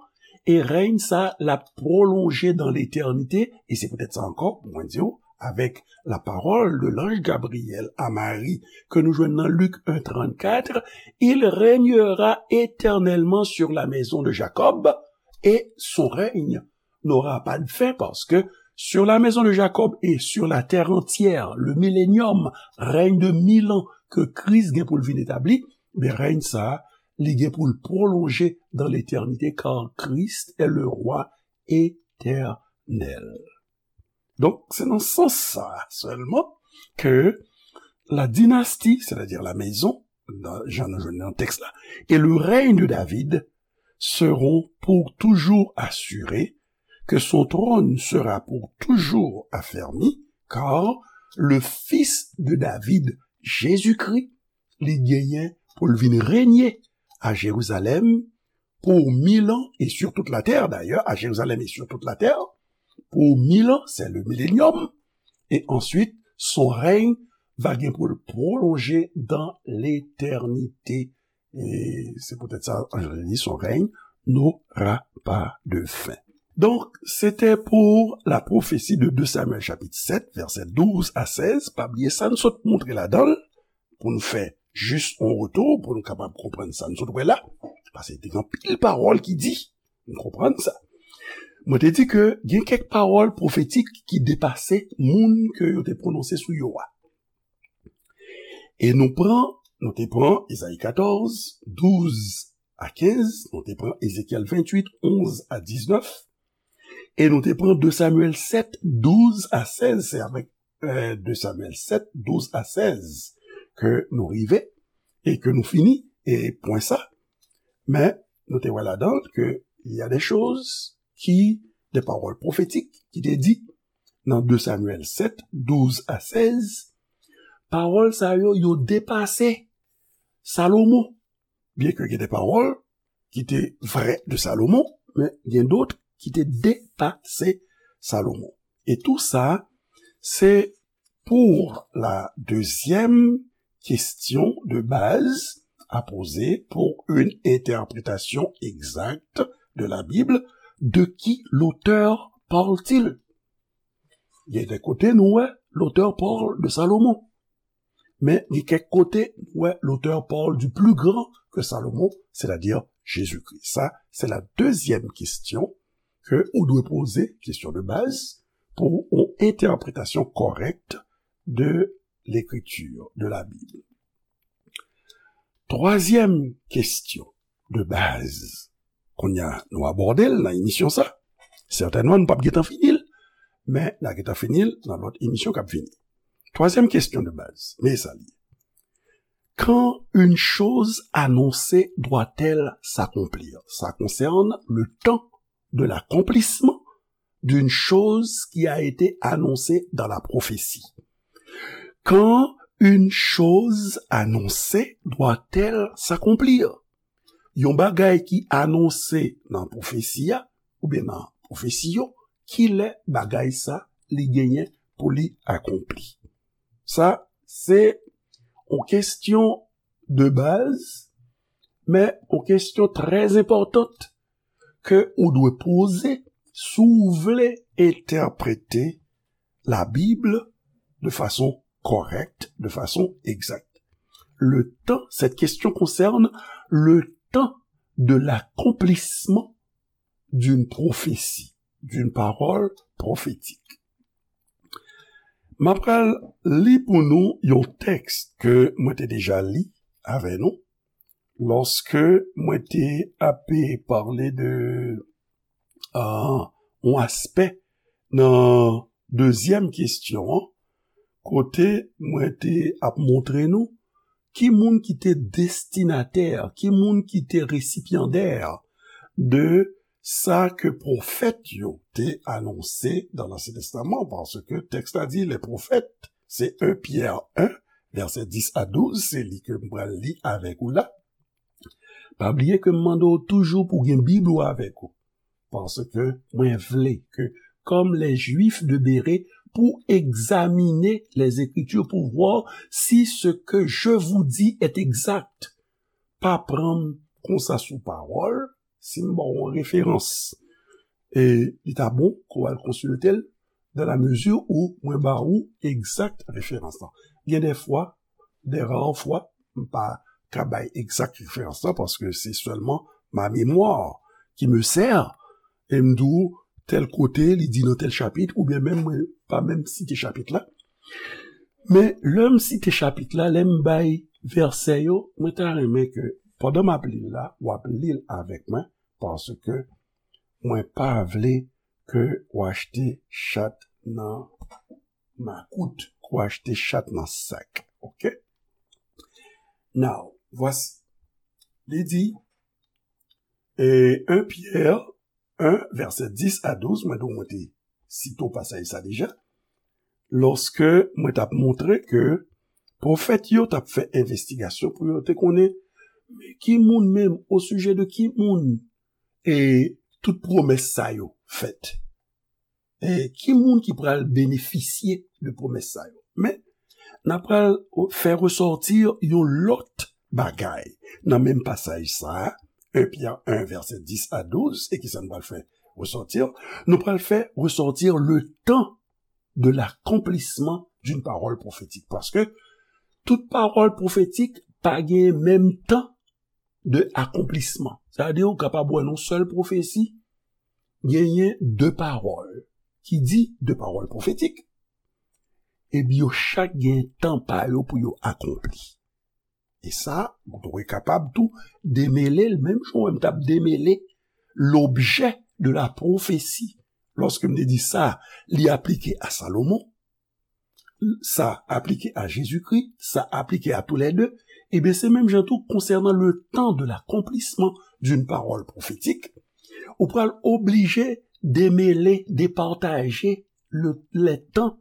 e rèy sa l ap pwolonje dan letènite, e se poutèt sa ankò, pou mwen di w, avec la parole de l'ange Gabriel à Marie, ke nou jwenn nan Lik en trannkat, il régnera éternellement sur la maison de Jacob, et son règne n'aura pas de fin, parce que sur la maison de Jacob et sur la terre entière, le millénium, règne de mil ans ke Kris gen pou l vin etabli, men rèy sa a, li gen pou l pwolonje dans l'éternité, car Christ est le roi éternel. Donk, se nan sans sa a sèlman ke la dynastie, c'est-à-dire la maison, nan, jan nou jwenn nan tèks la, et le règne de David seront pour toujours assurés, que son trône sera pour toujours affermi, car le fils de David, Jésus-Christ, li genyen pou l vin renye a Jerizalèm pour mille ans et sur toute la terre, d'ailleurs, à Jérusalem et sur toute la terre, pour mille ans, c'est le millénium, et ensuite, son règne va gen pou l pwolonje dans l'éternité. E se poutèt sa, anj la di, son règne n'aura pas de fin. Donk, se te pou la pwofesi de de Samyèl chapit sèt, vèsè douz a sèz. Pa bliye sa n sot montre ladan l, pou n fè jis yon retou, pou n kapab konprann sa n sot wè la. Paske te gen anpil pawòl ki di, n konprann sa. Mwen te di ke gen kèk pawòl pwofetik ki depase moun ke yo te pwononse sou yo a. E nou pran, nou te pran Ezayi katòz, douz a kenz, nou te pran Ezekyèl venntuit, onz a diznèf, e nou te pran de Samyèl sèt, douz a sèz, se avèk, eh, de Samyèl sèt, douz a sèz ke nou rive e ke nou fini, e pwen sa. Men, nou te wè ladan l ke il y a des choses qui, des paroles prophétiques ki te di nan de Samyèl sèt, douz a sèz, pawòl sa yo, yo depase Salomon. Byenke gen de pawòl ki te vrè de Salomon, men gen dòt ki te depase Salomon. E tou sa, se pour la deuxième question de base à poser pour une interprétation exacte de la Bible. De qui l'auteur parle-t-il? Il y a des côtés, nous, ouais, l'auteur parle de Salomon. Men gen kèk kote, nou wè, l'auteur parle du plus grand que Salomon, c'est-à-dire Jésus-Christ. Sa, se la dezyèm kesyon ke ou dwe poze, kesyon de baz, pou yon entèpretasyon kòrèk de lekritir, de la Bib. Twazyèm kesyon de baz, kounye a nou abòde l nan emisyon sa. Sètènman, nou p ap gentan fini l, men n a gentan fini l nan lòt emisyon k ap vini. Twazyèm kesyon de baz, men sa li. Quand une chose annoncée doit-elle s'accomplir? Ça concerne le temps de l'accomplissement d'une chose qui a été annoncée dans la prophétie. Quand une chose annoncée doit-elle s'accomplir? Yon bagay ki anonse nan pwofesi a, oubyen nan pwofesi yo, kilè bagay sa li genyen pou li akonpli? Sa, se yon kesyon de baz, men yon kesyon trè enpòtan ke ou dwe poze si w vle entèprete la Bible de façon correcte, de façon exacte. Le temps, cette question concerne le temps de l'accomplissement d'une prophétie, d'une parole prophétique. M ap pral li pou nou yon tèks ke mwen te deja li avè nou, lòske mwen te ape pale de ah, yon aspè nan dezyèm kesyon an, kote mwen te ap montre nou ki moun ki te destinatè, ki moun ki te resipyandè de sa ke pwofèt yo te anonse dans l'Ancien Testament, paske tèks la di, les prophètes, se un Pierre un, vèsè dis a douz, se li ke m pral li avèk ou la. Pa bliye ke m mande w toujou pou w gen Bib ou avèk ou. Paske mwen vle ke, comme les Juifs de Bérée, pou egzamine les Écritures pour voir si ce que je vous dis est exact. Pa pran m konsa sou pawòl, si m ba w yon referans, e li ta bon ke w al konsilte l, dans la mesure où mwen ba ou egzak referans lan. Gen de fwa, de rare fwa, m pa ka bay egzak referans lan, paske se sèlman ma mémoire qui me sert, e m di w, tèl kote, li di nan tèl chapit, oubyen menm mwen pa menm site chapit la. Men, lè m site chapit la, lè m bay vèsè yo, mwen ta renmen ke, pandan m ap li l la, w ap li l avèk mwen, paske mwen pa vle ke w achte chat nan makout, ke w achte chat nan sak. Oke? Now, voici. Li di, e un Pierre un, vèsè dis a douz, mwen di w mwen te site w pasaj sa deja, lòske mwen t ap montre ke pwofèt yo t ap fè envestigasyon pou yo te konnen, men ki moun menm, o sijè de ki moun, e tout pwomès sa yo fèt. E ki moun ki pral benefisye de pwomès sa yo? Men, n ap pral fè resòti yon lòt bagay nan menm pasaj sa a, un Pierre un, vèsè dis a douz, e ki sa n pral fè resòti? Nou pral fè resòti le temps de l'accomplissement d'une parole prophétique. Paske tout pawòl pwofetik pa gen menm tan de akonplisman. Sa vle di, ou kapab wè nan yon sèl pwofesi, genyen de pawòl ki di, de pawòl pwofetik, epi yo chak gen tan pa yo pou yo akonpli. E sa, ou dwe kapab tou demele l, menm jan w wè m t ap demele lobjè de la pwofesi. Lòske m te di sa, li aplike a Salomon, sa aplike a Jezikri, sa aplike a toulède, ebyen, se menm jan tou konsènan le temps de l'accomplissement d'une parole prophétique, ou pral oblije demele, depataje le, les temps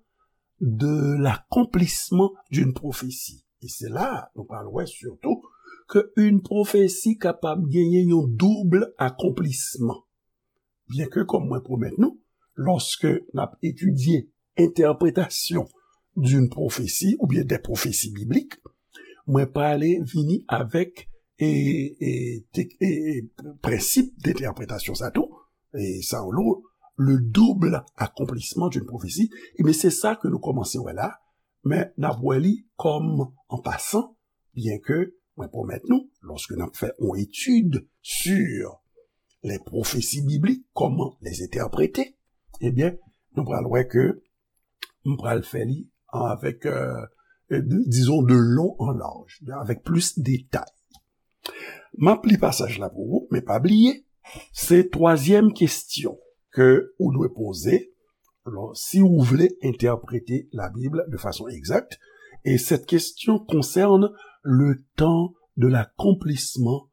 de l'accomplissement d'une prophétie. E se la nou pral wè sitou ke yon pwofesi kapab genyen yon doub akonplisman. Byenke, kòm mwen pwomèt nou, lòske n ap etidye entèpretasyon d'une prophétie oubyen des prophéties bibliques, mwen prale vini avèk e, e, tek-, e, e, prensip de entèpretasyon sa tou, e sa yo le double accomplissement d'une prophétie, ebyen se sa ke nou kòmanse wè la, men n ap wè li kòm an pasan, byenke mwen pwomèt nou, lòske n ap fè yon etid sur les prophéties bibliques, comment les interpréter, ebyen, nou pral wè ke m pral fè li avèk, euh, euh, de- disons, de long en large, avèk plis detay. M ap li pasaj la pou ou, men pa bliye, se twazyèm kesyon ke ou dwe poze, lò, si ou vle entèprete la Bible de façon exacte. Et cette question concerne le temps de l'accomplissement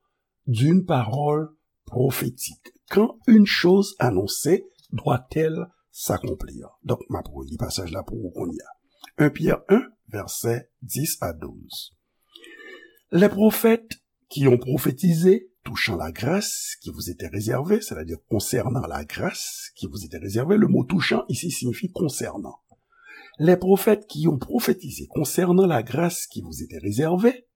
d'une parole prophétique. Quand une chose annoncée doit-elle s'accomplir? Donk, m ap reli pasaj la pou ou kounye a. Un Pierre un, versets dix à douze. Les prophètes qui ont prophétisé touchant la grâce qui vous était réservée, c'est-à-dire concernant la grâce qui vous était réservée, le mot touchant ici signifie concernant. Les prophètes qui ont prophétisé concernant la grâce qui vous était réservée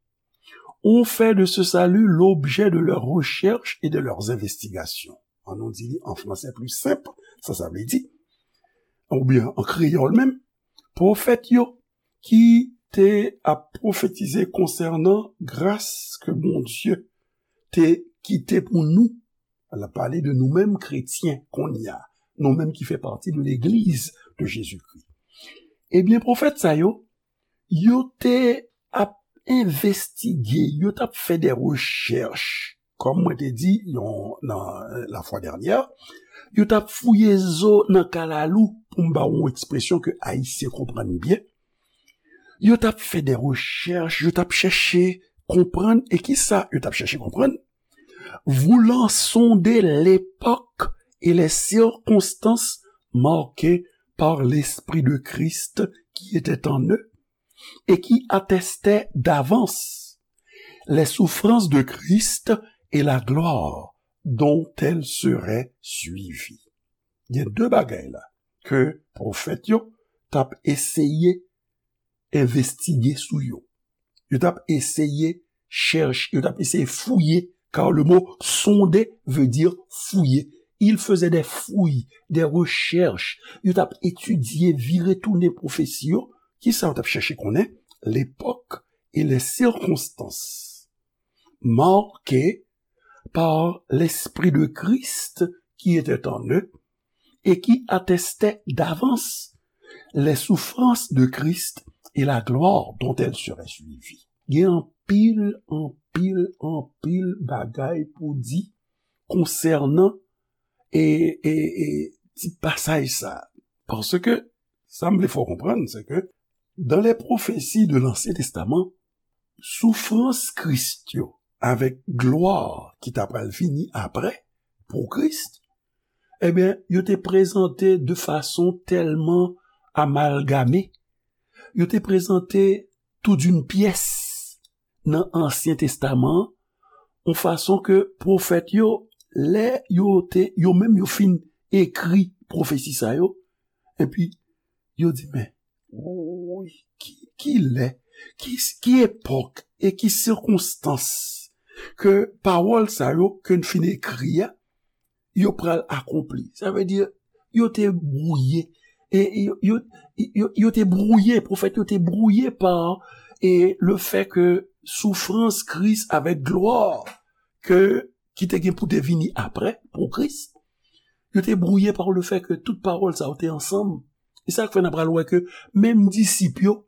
ont fait de ce salut l'objet de leurs recherches et de leurs investigations. An nou di li an fransè pli senp, sa sa vle di, oubyen an kreyòl menm, pwofèt yo ki te ap pwofetize konsènan gras ke Bondye te kite pou nou. L ap pale de nou menm kretyen kounye a, nou menm ki fè pati de legliz de Jezikri. Ebyen, pwofèt sa yo, yo te ap envestige, yo t ap fè de rechèch. Kòm mwen te di yon, nan, euh, la fwa dènyè, yo t ap fouye zo nan kalalou, pou m ba w yon ekspresyon ke Ayisyen konprann byen. Yo t ap fè de rechèch, yo t ap chèche konprann. E kisa yo t ap chèche konprann? Voulant sonder l'époque et les circonstances marquées par l'Esprit de Christ qui était en eux et qui attestait d'avance les souffrances de Christ et la gloire dont elles seraient suivies. Gen de bagay la ke pwofèt yo t ap eseye envestige sou yo. Yo t ap eseye chèche, yo t ap eseye fouye, car le mot sonder veut dire fouiller. Ils faisaient des fouilles, des recherches. Yo t ap etidye, vire tounen pwofesi yo. Kisa yo t ap chèche konnen? L'époque et les circonstances marquées par l'Esprit de Christ qui était en eux et qui attestait d'avance les souffrances de Christ et la gloire dont elles seraient suivies. Gen anpil, anpil, anpil bagay pou di konsènan e, e, e ti pasaj sa. Paske sa m vle fè w konprann, se ke dans les prophéties de l'Ancien Testament, soufrans Kris yo avèk glwa ki ta pral vini apre pou Kris, ebyen, yo te prezante de fason tèlman amalgame, yo te prezante tout d'une pièce nan Ansyen Testaman an, yon fason ke pwofèt yo, lè yo te, yo menm yo fin ekri pwofesi sa yo, epi yo di, men, woy, ki, ki lè, ki, ki epòk e ki sikonstans ke pawòl sa yo ke n fin ekri a, yo pral akonpli. Sa vle di, yo te bwouye. E yo, yo, yo, yo te bwouye, pwofèt yo te bwouye pa, e le fè ke soufrans Kris avèk glwa ke, ki te gen pou te vini apre, pou Kris, yo te bwouye pa le fè ke tout pawòl sa yo te ansanm. E sa k fè n a pral wè ke menm disip yo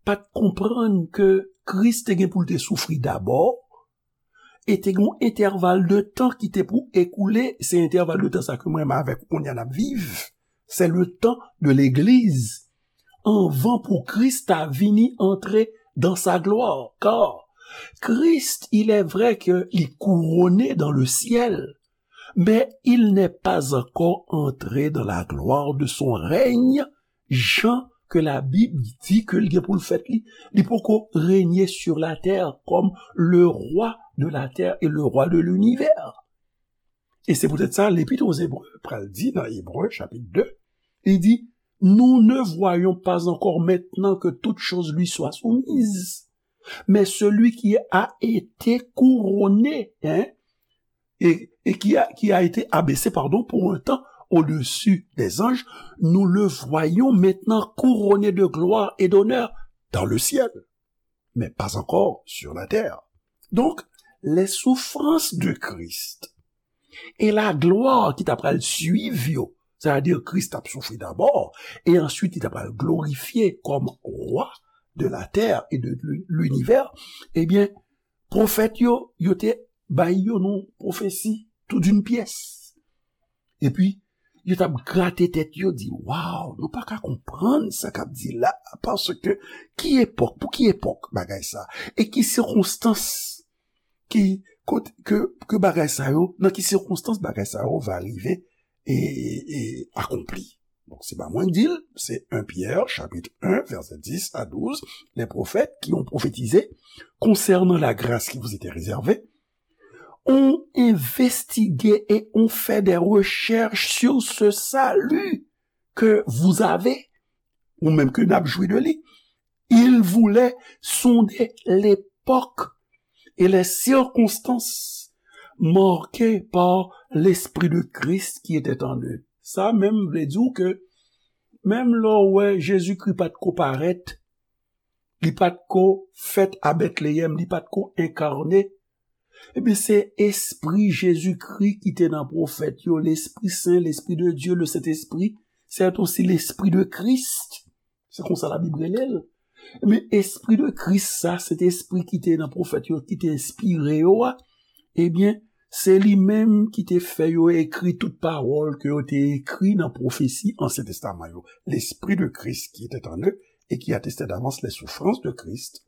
pa t konprann ke Kris te gen pou l te soufri dabò, e te gen yon entèval de tan ki te pou ekoule, se entèval de tan sa ke mwen menm avèk ou kounye a n ap viv. C'est le temps de l'église. Anvan pou Kris ta vini antre dans sa gloire. Car Christ, il est vrai que li couronné dans le ciel, mais il n'est pas encore entré dans la gloire de son règne, jan ke Labib di ke l gen pou l fèt li. Li poko renye sur la terre comme le roi de la terre et le roi de l'univers. E se poutèt sa, Lepit aux Hébreux pral di nan Ebre, chapit de, li di, nous ne voyons pas encore maintenant que toute chose lui soit soumise, mais celui qui a été couronné, hein, et, et qui a, qui a été abaissé, pardon, pour un temps au-dessus des anges, nous le voyons maintenant couronné de gloire et d'honneur dans le ciel, mais pas encore sur la terre. Donc, les souffrances de Christ E laglwa ki ta pral swiv yo, sètadi Kris t ap soufri dabò, e answit li ta pral glorifye kòm wa de la tè e de linivè, ebyen, pwofèt yo, yo te bay yo yon pwofesi tou d'une pyès. Epi, yo t ap grate tèt yo, di, waw, nou pa ka konprann sa k ap di la, paske ki epòk, pou ki epòk bagay sa, e ki sikonstans ki, kot, ke, ke bagay sa yo, nan ki sikonstans bagay sa yo va rive e, e akonpli. Donk, se pa mwen k di l, se un Pierre, chapitre un, verset dix à douze, les prophètes qui ont prophétisé concernant la grâce qui vous était réservée, ont investigué et ont fait des recherches sur ce salut que vous avez, ou menm ke n ap jwi de li. Ils voulaient sonder l'époque et les circonstances marquées par l'Esprit de Christ qui était en eux. Sa menm vle di w ke menm lè w wè Jezikri pa t ko parèt, li pa t ko fèt a Betleyèm, li pa t ko enkane, ebyen, se Espri Jezikri ki te nan pwofèt yo, Lespri Sen, Lespri de Dye, le Sentespri, c'est aussi l'Esprit de Christ. Se konsa Labib rele l. Men Espri de Kris sa, Sentespri ki te nan pwofèt yo, ki te enspire yo a, ebyen, se li menm ki te fè yo ekri tout pawòl ke yo te ekri nan pwofesi Ansyen Testaman yo. L'Esprit de Christ qui était en eux et qui attestait d'avance les souffrances de Christ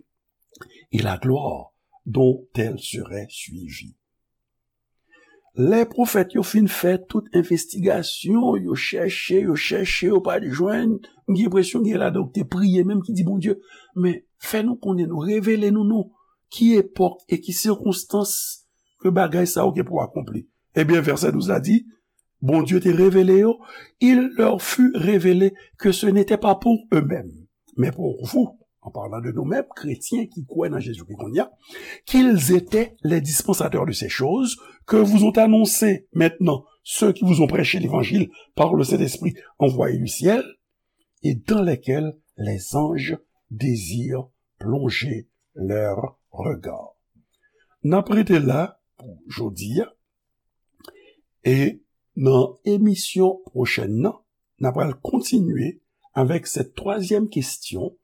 et la gloire dont elles seraient suivies. Lè pwofèt yo fin fè tout envestigasyon, yo chèche, yo chèche, yo pa t jwenn, m gen enpresyon gen ladan yo ki te priye menm ki di Bondye, men fè nou konnen non, revele nou non, ki epòk e ki sikonstans ke bagay sa yo gen pou akonpli. Ebyen, vèsè douz la di, Bondye te revele yo, il leur fut révélé que ce n'était pas pour eux-mêmes, mais pour vous, en parlant de nous-mêmes, chrétiens ki kwè nan Jezikri kounye a, qu'ils étaient les dispensateurs de ces choses que vous ont annoncées maintenant ceux qui vous ont prêché l'évangile par le Saint-Esprit envoyé du ciel, et dans lesquels les anges désirent plonger leur regard. N ap rete la pou jodi a, e nan emisyon pwochèn nan, n ap pral kontinye avèk cette troisième question,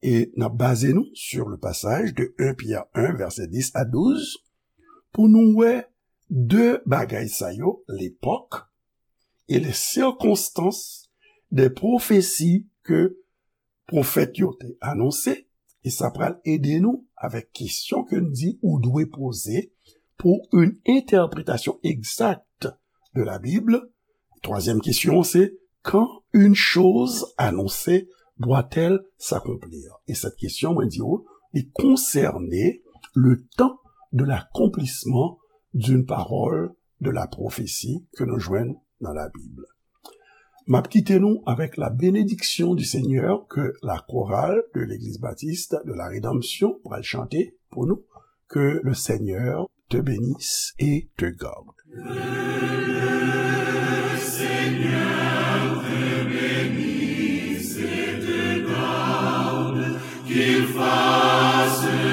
e n ap baze nou sur le passage de un Pierre un, verset dix à douze, pou nou wè de bagay sa yo, l'époque et les circonstances des prophéties que pwofèt yo te anonse, e sa pral ede nou avèk kesyon ke n di ou dwe poze pour une interprétation exacte de la Bible. Troisième question, c'est quand une chose annoncée doit-elle s'accomplir? E cette question, mwen di ou, li konsène le temps de l'accomplissement d'une parole de la prophétie ke nou jwenn nan Labib. M ap kite nou avec la bénédiction du Seigneur que la chorale de l'Église Baptiste de la Rédemption pral chante pou nou. Que le Seigneur te bénisse et te garde. Que le Seigneur te bénisse et te garde, qu'il fasse